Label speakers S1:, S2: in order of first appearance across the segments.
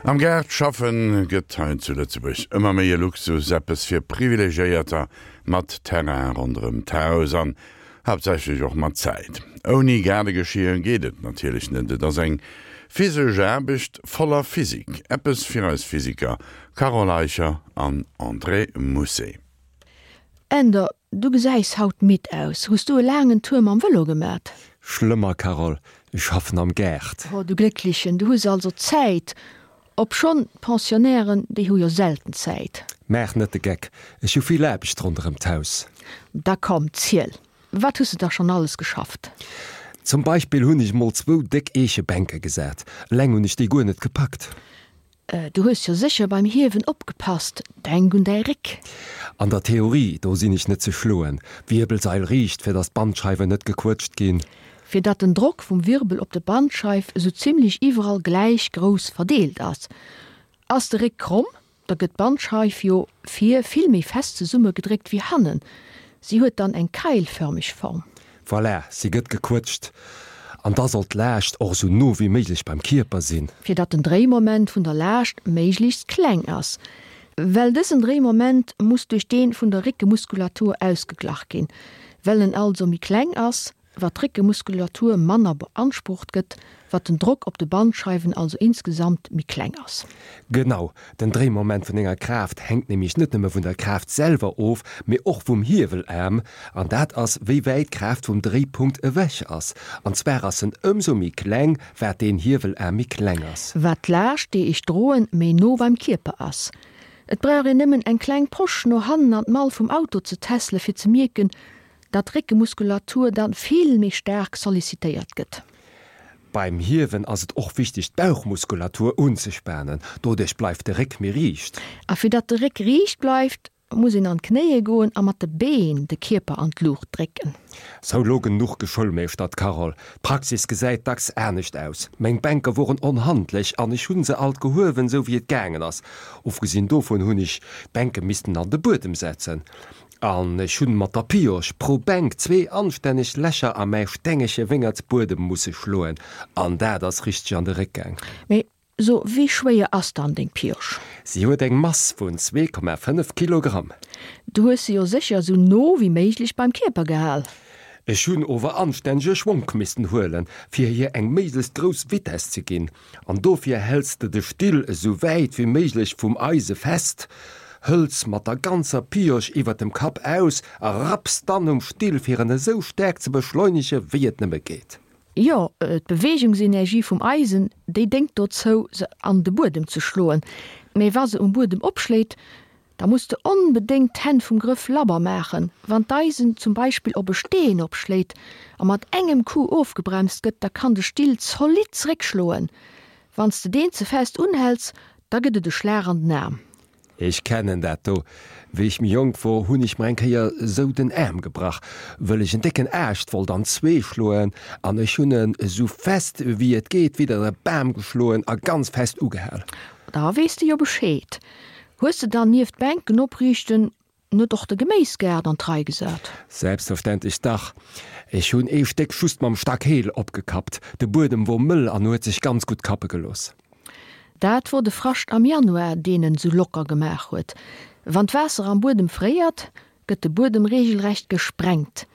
S1: Am Gaart schaffen gëtt hei zu Lëtzebuerg ëmmer méi e Luxus, eppes fir Privilegiéierter mat Terrain ronderëm d'Haus an haaptsächlech och mat Zäit. Ouni Gaardegeschier geet et natierlech net, et ass eng physesch Aarbecht voller Physik, eppes fir eis Physiker Carole Eicher an André Mousset.
S2: Änder, du gesäis haut midd aus. Hues du e laangen Tour mam Vëlo gemat?
S3: Schlëmmer, Carole, ech schaffen am Gaart.
S2: Oh, du Glécklechen, du hues also Zäit. Obschonn, d'Pensionnairen, déi hu jo selten Zäit.
S3: Maach net de Geck, ech hu vill Aarbecht ronderëm d'Haus.
S2: Da komm, ziel, wat hues de da schonn alles geschafft?
S3: Zum Beispill hunn ech mol zwou déck Eechebänke gesat. Eleng hunn ech déi guer net gepackt.
S2: Du hues jo sécher beim Hiewen opgepasst, denk un däi Réck.
S3: An der Theorie, do sinn ech net ze schloen. Wierbelsail riicht, fir datt d'Bandscheiwen net gequëtscht ginn.
S2: Fir datt den Drock vum Wirbel op de Bandscheif esou zimlech iwwerall gläich grouss verdeelt ass. Ass de Réck kromm, da gëtt d'Bandscheif jo vir vill méi fest zesummegedréckt wéi hannen, si huet dann eng keilförmeg Form.
S3: Voilà, si gëtt gequëtscht. An da soll d'Laascht och esou no wéi méiglech beim Kierper sinn.
S2: Fir datt den Dréimoment vun der Laascht méiglechst kleng ass. Well dësen Dréimoment muss duerch dee vun der Réckemuskulatur ausgeglach ginn. Well en also méi kleng ass, wat d'Réckemuskulatur manner beansprucht gëtt, wat den Drock op de Bandscheiwen also insgesamt méi kleng ass.
S3: Genau, den Dréimoment vun enger Kraaft hänkt nämlech net nëmme vun der Kraaft selwer of, mee och vum Hiewelaarm, an dat ass wéi wäit d'Kraaft vum Dréipunkt ewech ass. An zwar ass en ëmsou méi kleng, wat deen Hiewelaarm méi kleng ass.
S2: Wat d'Laascht déi ech droen méi no beim Kierper ass. Et brauch een nëmmen eng kleng Posch no hannen an d'Mall vum Auto ze tässele fir ze mierken, datt d'Réckemuskulatur dann vill méi staark sollicitéiert gëtt.
S3: Beim Hiewen ass et och wichteg d'Bauchmuskulatur unzespanen, doduerch bleift de Réck méi riicht.
S2: A fir datt de Réck riicht bleift, muss een an d'Knéie goen a mat de Been de Kierper an d'Luucht drécken.
S3: Sou, lo genuch geschoulmeeschtert, Carole. D'Praxis gesäit dacks anescht aus. Meng Bänke woren onhandlech an ech hunn se alt gehuewen, sou wéi et gaangen ass. Ofgesinn dovun hunn ech d'Bänke missten an de Buedem setzen. An ech hunn mat der Pioche pro Bänk zwee anstänneg Lächer a mäi stengege Wéngertsbuedem musse schloen, an dat ass richteg an de Réck gaang.
S2: Mee so, wéi schwéier ass dann deng Pioche?
S3: Si huet eng Mass vun 2,5 Kilogramm.
S2: Du hues se jo sécher esou no wéi méiglech beim Kierper gehal.
S3: Ech hunn ower anstännege Schwonk missten huelen, fir hir eng méiglechst grouss Vitess ze ginn. An dofir häls de de Still esou wäit wéi méiglech vum Eise fest, hëls mat der ganzer Pioche iwwer dem Kapp aus a rapps dann um Still fir en esou staark ze beschleunege wéi et nëmme geet.
S2: Jo, d'Beweegungsenergie vum Eisen, déi déngt dozou se an de Buedem ze schloen. Mee wa se um Buedem opschléit, Da muss de onbedéngt d'Hänn vum Grëff labber maachen. Wann d'Eisen zum Beispill op e Steen opschléit a mat engem Coup ofgebremst gëtt, da kann de Still zolidd zeréckschloen. Wann s de deen ze fest unhäls, da gëtt et e Schlag an den Aarm.
S3: Ech kennen dat do. Wéi ech méi jonk wor, hunn ech mer eng Kéier esou den Aarm gebrach, wëll ech en décken Aascht wollt an zwee schloen an ech hunn en esou fest wéi et geet widder e Bam geschloen a ganz fest ugehal.
S2: Da weess de jo Bescheed. Hues de dann nieft Bänken opriichten net och de Geméisgaart an d'Rei gesat?
S3: Selbstverständlech dach. Ech hunn ee Stéck just mam Stack-Heel opgekappt. De Buedem wor mëll an huet sech ganz gutt kappe gelooss.
S2: Dat wor de Frascht am Januar, deen en sou locker gemaach huet. Wann d'Waasser am Buedem fréiert, gëtt de Buedem regelrecht gesprengt.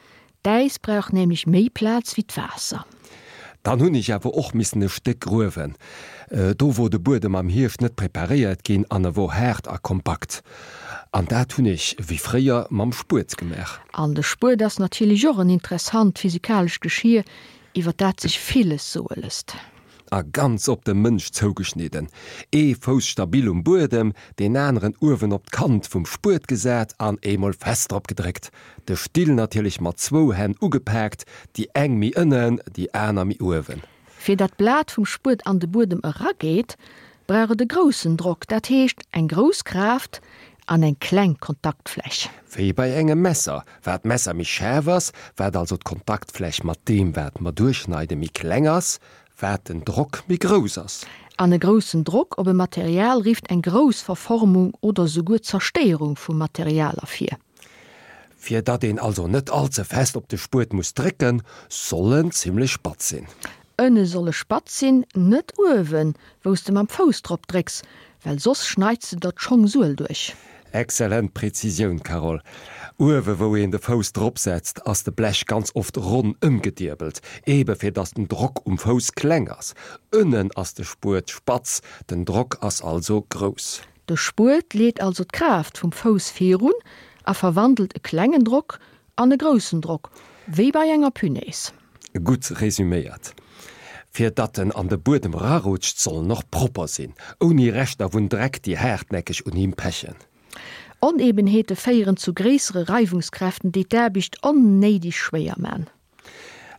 S2: D'Äis brauch nämlech méi Plaz wéi d'Waasser.
S3: Dann hunn ech awer och missen e Stéck gruewen. Do wor de Buedem am Hierscht net preparéiert ginn an e wor haart a kompakt. An dat hunn ech, wéi fréier, mam Spuet gemaach.
S2: An de Spuet ass natierlech och en interessant physikalescht Geschier, iwwer dat sech villes soe lësst.
S3: A ganz op de Mënsch zougeschnidden, ee Fouss stabil um Buedem, deen aneren uewen op d'Kant vum Spuet gesat an eemol fest drop gedréckt. De Still natierlech mat zwou Hänn ugepaakt, déi eng méi ënnen, déi aner méi uewen.
S2: Fir dat d'Blat vum Spuet an de Buedem erageet, brauch et e groussen Drock, dat heescht eng grouss Kraaft an eng kleng Kontaktfläch.
S3: Wéi bei engem Messer, wat d'Messer méi schaarf ass, wat also d'Kontaktfläch mat deem wat mer duerchschneiden méi kleng ass, wat den Drock méi grouss ass.
S2: An e groussen Drock op e Material rifft eng grouss Verformung oder souguer Zerstéierung vum Material ervir.
S3: Fir datt een also net all ze fest op de Spuet muss drécken, soll en zimlech spatz sinn.
S2: Ënne soll e spatz sinn, net uewen, wou s de mam Fouss drop drécks, well soss schneits de der d'Schongsuel duerch.
S3: Exzellent Präzisioun, Carole. Uewe wou een de Fouss drop setzt, ass de Blech ganz oft ronn ëmgedierbelt, ebe fir dass den Drock um Fouss kleng ass. Ënnen ass de Spuet spatz, den Drock ass also grouss.
S2: De Spuet leet also d'Kraaft vum Fouss virun a verwandelt e klengen Drock an e groussen Drock, wéi bei enger Punaise.
S3: Gutt resüméiert. Fir datt en an de Buedem rarutscht, soll en och propper sinn, ouni Reschter vun Dreck, déi haartnäckeg un him pechen.
S2: Onebenheete féieren zu gréissere Reiwungskräften, déi d'Aarbecht onnéideg schwéier man.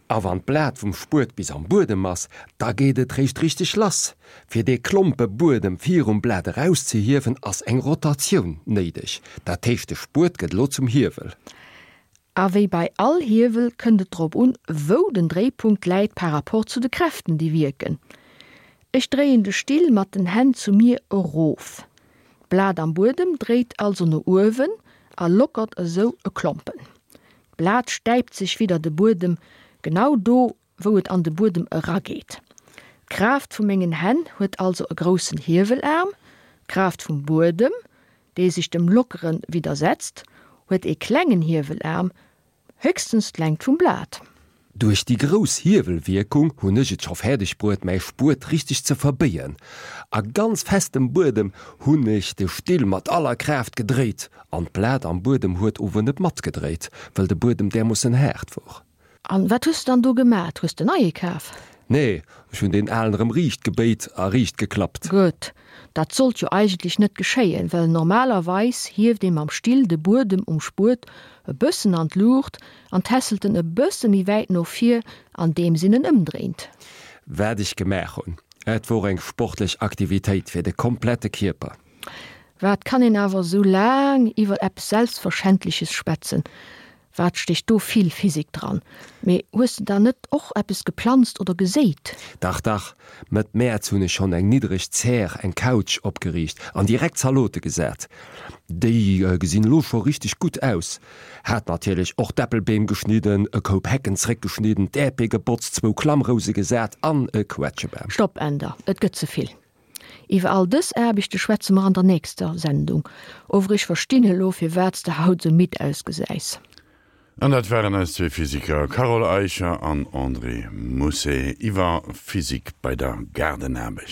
S3: A wann d'Blat vum Spuet bis am Buedem ass, da geet et réischt richteg lass. Fir dee Klompe Buedem virum Blat erauszehiewen, ass eng Rotatioun néideg. Dat heescht, de Spuet gëtt elo zum Hiewel.
S2: A wéi bei all Hiewel kënnt et drop un, wou den Dréipunkt läit par rapport zu de Kräften, déi wierken. Ech dréien de Still mat den Hänn zu mir erof. D'Blat am Buedem dréit also no uewen a lockert esou e Klompen. D'Blat stäipt sech widder de Buedem, genau do, wou et an de Buedem erageet. D'Kraaft vu mengen Hänn huet also e groussen Hiewelaarm, d'Kraaft vum Buedem dee sech dem Lockere widdersetzt, huet ee klengen Hiewelaarm, héchstens d'Längt vum Blat.
S3: Duerch déi grouss Hiewelwierkung hunn ech et scho fäerdeg bruet mäi Spuet richteg ze verbéien. A ganz festem Buedem hunn ech de Still mat aller Kraaft gedréit an d'Blat am Buedem huet ower net matgedréit, wëll de Buedem därmoossen haart wor.
S2: An wat hues de dann do gemat? Hues de neie kaf?
S3: Nee, ech hunn deen alen erëm riicht gebéit a riicht geklappt.
S2: Gutt, dat sollt jo eigentlech net geschéien, well normalerweis hieft ee mam Still de Buedem um Spuet e bëssen an d'Luucht an tässelt en e bësse méi wäit no vir, andeems een en ëmdréint.
S3: Wat ech gemaach hunn, et wor eng sportlech Aktivitéit fir de komplette Kierper.
S2: Wat kann een awer esou laang iwwer eppes Selbstverschändleches schwätzen? Wat stécht do vill Physik dran? Mee hues de dann net och eppes geplanzt oder geséit?
S3: Dach, dach, Mëtt Mäerz hunn ech schonn eng niddreg Zär, eng Couch, opgeriicht an direkt Zalote gesat. Déi gesinn elo scho richteg gutt aus. Hat natierlech och d'Äppelbeem geschnidden, e Koup Hecken zréckgeschnidden, d'Äerpee gebotzt, zwou Klammrouse gesat an e Quetschebam.
S2: Stopp, Änder, et gëtt ze vill. Iwwer all dës Aarbechte schwätze mer an der nächster Sendung. Ower ech verstinn elo, firwat s de haut sou midd ausgesäis.
S1: An dat waren eis zwee Physiker Carole Eicher an André Mousset iwwer Physik bei der Gaardenaarbecht.